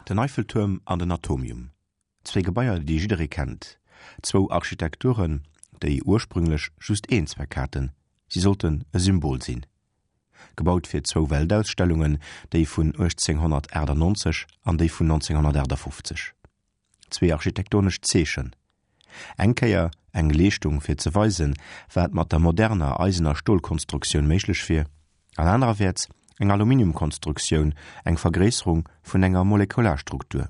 Den Eiffeltuerm an den Atomium, zwéi Gebaier, déi jidderee kennt, zwou Architekturen, déi ursprünglech just een Zweck haten, si sollten e Symbol sinn. Gebaut fir zwou Weltausstellungen, déi vun 1898 an déi vun 1958. Zwee architektonesch Zeechen. Eng Kéier eng Leeschtung fir ze weisen, wat mat der moderner Eisen a Stolkonstruktioun méiglech wier, an anererwäerts eng Aluminiumkonstruktioun, eng Vergréisserung vun enger Molekularstruktur.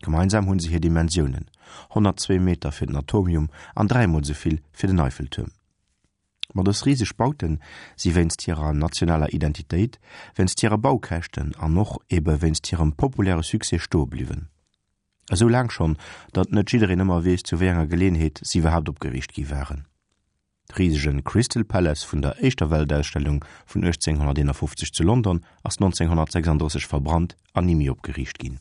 Gemeinsam hunn se hir Dimensiounen, 102 Meter fir den Atomium an dräimol esou vill fir den Eiffeltuerm. Ma dës riseg Bauten si wéinst hirer nationaler Identitéit, wéinst hire Baukäschten an och ebe wéinst hirem populäre Succès stoe bliwwen. Esou laang schonn, datt net jiddereen ëmmer weess, zu wéi enger Geleeënheet si iwwerhaapt opgeriicht gi waren. De risege Crystal Palace vun der éischter Weltausstellung vun 1851 zu London ass 1936 verbrannt an ni méi opgeriicht ginn.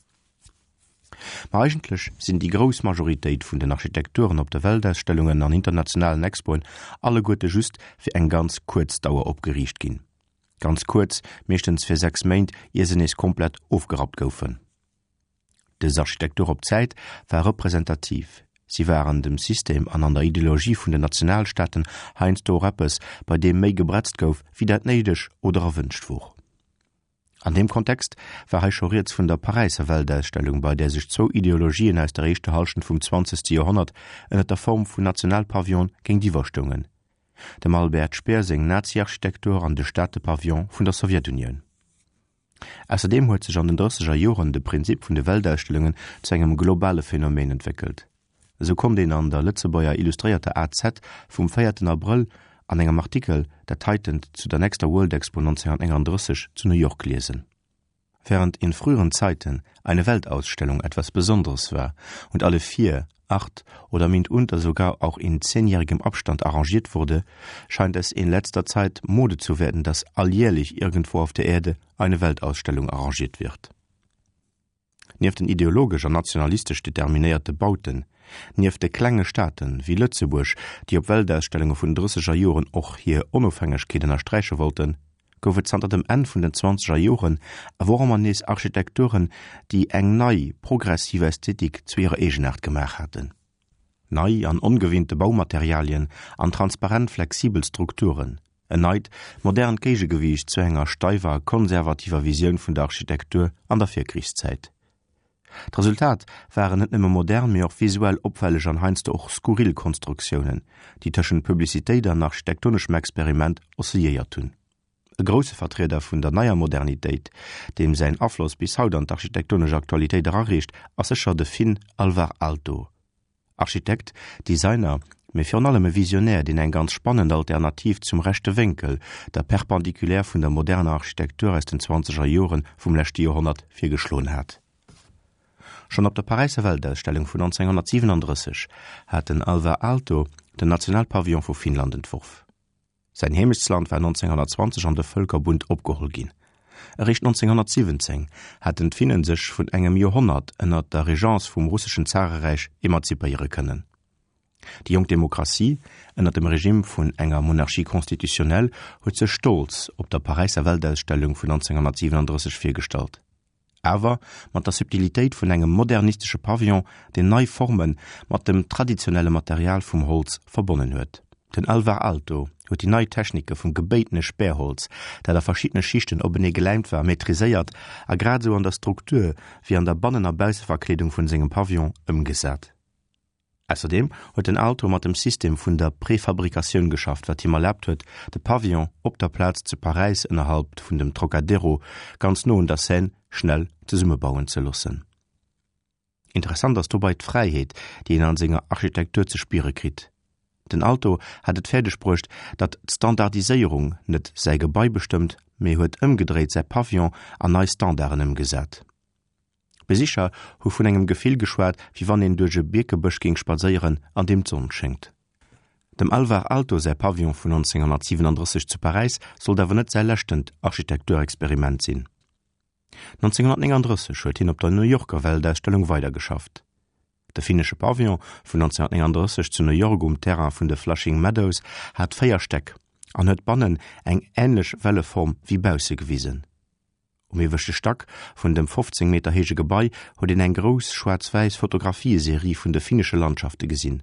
Ma eigentlech sinn déi grouss Majoritéit vun den Architekturen op de Weltausstellungen an internationalen Expoen alleguerte just fir eng ganz kuerz Dauer opgeriicht ginn. Ganz kuerz, meeschtens fir 6 Méint, ier se nees komplett ofgerappt goufen. Dës Architektur op Zäit war representativ, si war an dem System an an der Ideologie vun den Nationalstaaten heiansdo och eppes, bei deem méi gebretzt gouf, wéi dat néideg oder erwënscht wor. An deem Kontext war hei scho rieds vun der Paräisser Weltausstellung, bei där sech zwou Ideologien aus der éischter Hallschent vum zwanzegste Joerhonnert ënner der Form vun Nationalpavillone géintiwwer stoungen, dem Albert Speer seng Nazi-Architektur an de Staatepavillon vun der Sowjetunioun. Ausserdeem huet sech an den drësseger Joren de Prinzip vun de Weltausstellungen zu engem globale Phänomen entwéckelt. Esou konnt een an der Lëtzebuerger Illustréierter AZ vum véierten Abrëll an engem Artikel dat heitent zu der nächster World Expo 1939 zu New York liesen. Während in früheren Zeiten eine Weltausstellung etwas Besonderes war und alle vier, acht oder mitunter sogar auch in zehnjährigem Abstand arrangiert wurde, scheint es in letzter Zeit Mode zu werden, dass alljährlich irgendwo auf der Erde eine Weltausstellung arrangiert wird. Nieft den ideologesch an nationalistesch determinéierte Bauten, nieft de klenge Staate wéi Lëtzebuerg, déi op Weltausstellunge vun den drësseger Joren och hir Onofhängegkeet ënnersträiche wollten, gouf et zanter dem Enn vun den zwanzeger Joren awer och ëmmer nees Architekturen, déi eng nei, progressiv Ästhetik zu hirer Eegenaart gemaach haten. Nei an ongewinnte Baumaterialien an transparent flexibel Strukturen, en neit, modernt Géigegewiicht zu enger steiwer, konservativer Visioun vun der Architektur an der Virkrichszäit. D'Resultat waren net nëmme modern, mee och visuell opfälleg an heiansdo och skurril Konstruktiounen, déi tëschent Publicitéit an architektoneschem Experiment oscilléiert hunn. E grousse Vertrieder vun der neier Modernitéit, deem säin Afloss bis haut an d'architektonesch Aktualitéit erareecht, ass sécher de Finn Alvar Aalto. Architekt, Designer, mee virun allem e Visionär, deen eng ganz spannend Alternativ zum rechte Wénkel, der Perpendiculaire vun der moderner Architektur aus den zwanzeger Jore vum leschte Joerhonnert virgeschloen hat. Schonn op der Paräisser Weltausstellung vun 1937 hat den Alvar Aalto den Nationalpavillon vu Finnland entworf. Säin Heemechtsland war 1920 an de Vëlkerbund opgeholl ginn. Eréischt 1917 haten d'Finnen sech vun engem Joerhonnert ënner der Regence vum russeschen Zareräich emanzipéiere kënnen. Déi jonk Demokratie ënner dem Regime vun enger Monarchie constitutionnelle huet sech stolz op der Paräisser Weltausstellung vun 1937 virgestallt. Awer mat der Subtilitéit vun engem modernistesche Pavillon, deen nei Forme mat dem traditionelle Material vum Holz verbonnen huet. Den Alvar Aalto huet déi nei Technike vum gebéitene Spärholz, dat a verschiddene Schichten openee geläimt war, maîtriséiert a grad esou an der Struktur wéi an der Bannen a Bausseverkleedung vun sengem Pavillon ëmgesat. Ausserdeem huet den Aalto mat dem System vun der Prefabrikatioun geschafft, wat him erlaabt huet, de Pavillon op der Plaz zu Paräis ënnerhalb vun dem Trocadero, ganz no un der Seine, schnell zesummebauen ze loossen. Interessant ass dobei d'Fräiheet, déi een an senger Architektur ze spiere kritt. Den Aalto hat et fäerdeg bruecht, datt d'Standardiséierung net säi Gebai bestëmmt, mee huet ëmgedréit säi Pavillon an nei Standarden ëmgesat. D'Besicher hu vun engem Gefill geschwat, wéi wann een duerch e Bierkebësch géing spadséieren, an deem d'Sonn schéngt. Dem Alvar Aalto säi Pavillon vun 1937 zu Paräis sollt awer net säi leschtent Architekturexperiment sinn. 1939 huet hien op der New Yorker Weltausstellung weidergeschafft. De finnesche Pavillon vun 1939 zu New York um Terrain vun de Flushing Meadows hat 4 Stäck an huet bannen eng änlech Welleform wéi bausse gewisen. Um ieweschte Stack vun dem 15 Meter héije Gebai huet een eng grouss schwaarz-wäiss Fotografieserie vun de finnesche Landschafte gesinn.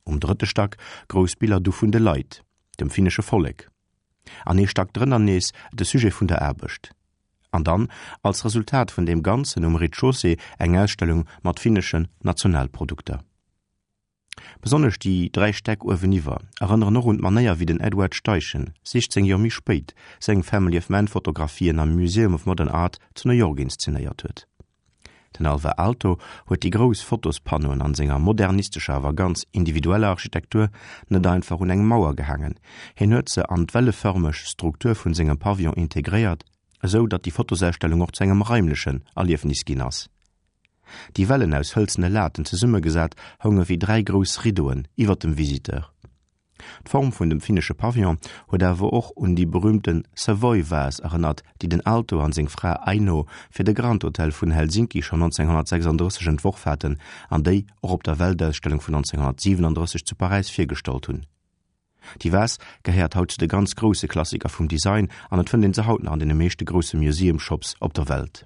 Um drëtte Stack grouss Biller du vun de Leit, dem finnesche Vollek. An ee Stack drënner nees de Sujet vun der Aarbecht. An dann, als Resultat vun deem Ganzen, um Rez-de-chaussée eng Ausstellung mat finneschen Nationalprodukter. Besonnesch déi 3 Stäck ueweniwwer erënneren och un d'Manéier wéi den Edward Steichen 16 Joer méi spéit seng Family of Man Fotografien am Museum of Modern Art zu New York inszenéiert huet. Den Alvar Aalto huet déi grouss Fotospannoen an senger modernistescher awer ganz individueller Architektur net einfach un eng Mauer gehaangen, hien huet se an d'wellefërmeg Struktur vun sengem Pavillon integréiert, esou datt déi Fotosausstellung och zu engem raimlechen Erliefnis ginn ass. Déi Wellen aus hëlzene Laten zesummegesat hounge wéi 3 grouss Riddoen iwwer dem Visiteur. D'Form vun dem finnesche Pavillon huet awer och un déi berüümte Savoy-Vase erënnert, déi den Aalto an seng Fra Aino fir de Grand Hotel vun Helsinki schonn 1936 entworf haten an déi och op der Weltausstellung vun 1937 zu Paräis virgestallt hunn. Déi Vase gehéiert haut zu de ganz grousse Klassiker vum Design an et fënnt een se haut nach an deene meeschte grousse Museum Shops op der Welt.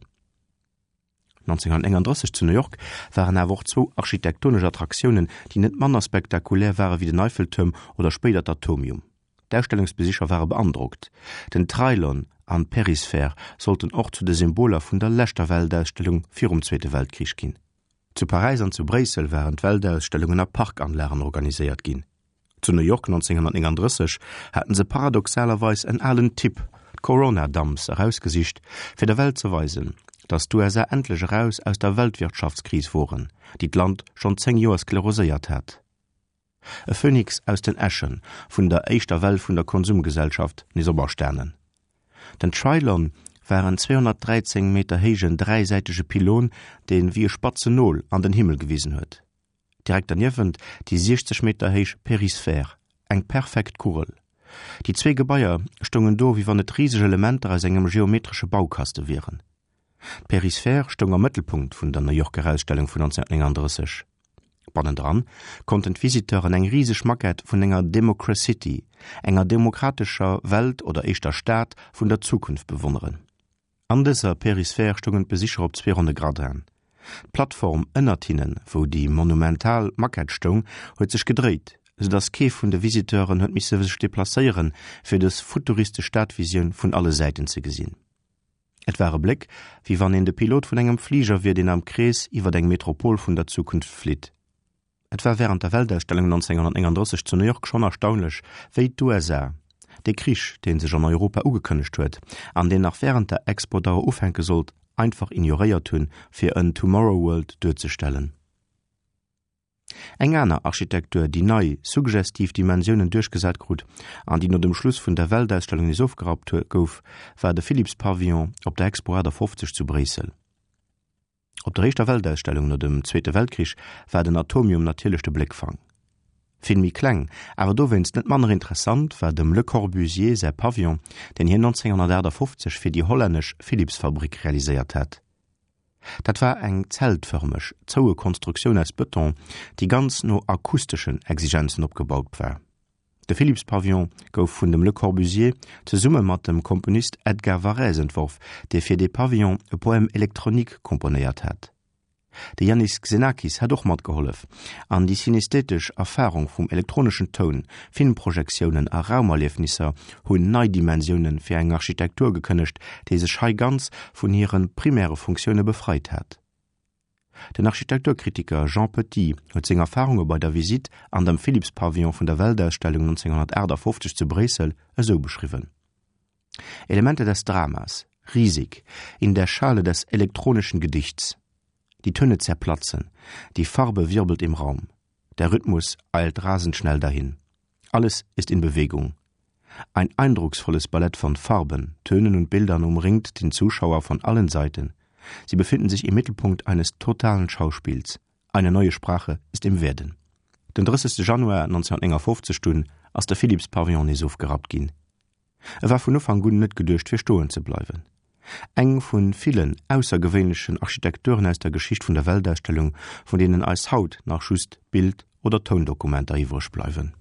1939 zu New York waren awer och zwou architektonesch Attraktiounen, déi net manner spektakulär ware wéi den Eiffeltuerm oder spéider d'Atomium. D'Ausstellungsbesicher ware beandrockt. Den Trylon an d'Perisphär sollten och zu de Symboler vun der leschter Weltausstellung virum Zweete Weltkrich ginn. Zu Paräis an zu Bréissel waren d'Weltausstellungen a Parkanlagen organiséiert ginn. Zu New York 1939 haten se paradoxalerweis en alen Typ, d'Corona Dumps, erausgesicht, fir der Welt ze weisen, datt d'USA endlech eraus aus der Weltwirtschaftskris woren, déi d'Land schonn 10 Joer skleroséiert hat. E Phönix aus den Äsche vun der éischter Well vun der Konsumgesellschaft nees operstanen. Den Trylon war en 213 Meter héijen dräisäitege Pylon, dee wéi e spatzen Nol an den Himmel gewisen huet. Direkt derniewent déi 60 Meter héich Périsphère, eng perfekt Kugel. Déi zwee Gebaier stoungen do, wéi wann et riseg Elementer aus engem geometresche Baukaste wieren. D'Périsphère stoung am Mëttelpunkt vun der New Yorker Ausstellung vun 1939. Bannendran konnten d'Visiteuren eng riseg Maquette vun enger Democracity, enger demokratescher Welt oder éischter Stad vun der Zukunft bewonneren. An dëser Périsphère stoungen d'Besicher op zwee ronne Gradinen. D'Plattform ënnert hinnen, wou déi monumental Maquette stoung, huet sech gedréit, sou datt kee vun de Visiteuren huet misse sech deplacéieren, fir dës futuristesch Stadvisioun vun alle Säiten ze gesinn. Et war e Bléck, wéi wann een de Pilot vun engem Fliger wier, deen am Krees iwwer eng Metropol vun der Zukunft flitt. Et war wärend der Weltausstellung 1939 zu New York schonn erstaunlech, wéi d'USA dee Krich, dee sech an Europa ugekënnegt huet an deen nach wärend der Expo-Dauer ufänke sollt, einfach ignoréiert hunn, fir en Tomorrow World duerzestellen. Eng aner Architektur, déi nei, suggestiv Dimensiounen duerchgesat krut an déi no dem Schluss vun der Weltausstellung nees ofgerappt gouf, war de Philips Pavillon op der Expo 58 zu Bréissel. Op der éischter Weltausstellung no dem Zweete Weltkrich war den Atomium natierlech de Bléckfang. Vill méi kleng, awer dowéinst net manner interessant war dem Le Corbusier säi Pavillon, deen hien 1958 fir déi hollännesch Philips-Fabrick realiséiert hat. Dat war eng zeltfërmeg, zoue Konstruktioun aus Bëton, déi ganz no akusteschen Exigenzen opgebaut war. De Philips-Pavillon gouf vun dem Le Corbusier zesumme mat dem Komponist Edgar Varèse entworf, dee fir dee Pavillon e Poème électronique komponéiert hat. De Iannis Xenakis hat och matgehollef, an déi synesthetesch Erfarung vum elektroneschen Toun, Filmprojektiounen a Raumerliefnisser hunn nei Dimensioune fir eng Architektur gekënnegt, déi sech hei ganz vun hire primäre Funktioune befreit hat. Den Architekturkritiker Jean Petit huet seng Erfarunge bei der Visitt an dem Philips-Pavillon vun der Weltausstellung 1958 zu Bréissel esou beschriwwen, Elemente des Dramas, riesig, in der Schale des elektronischen Gedichts. Die Töne zerplatzen, die Farbe wirbelt im Raum, der Rhythmus eilt rasend schnell dahin. Alles ist in Bewegung. Ein eindrucksvolles Ballett von Farben, Tönen und Bildern umringt den Zuschauer von allen Seiten. Sie befinden sich im Mittelpunkt eines totalen Schauspiels. Eine neue Sprache ist im Werden. Den 30. Januar 1959 dunn ass de Philips Pavillon nees ofgerappt ginn. E war vun Ufank un net geduecht fir stoen ze bleiwen. Eng vu villen aussergewéinlechen Architekturen aus der Geschicht vun der Weltausstellung, vun deenen eis haut nach just Bild oder Toundokumenter iwwreg bleiwen.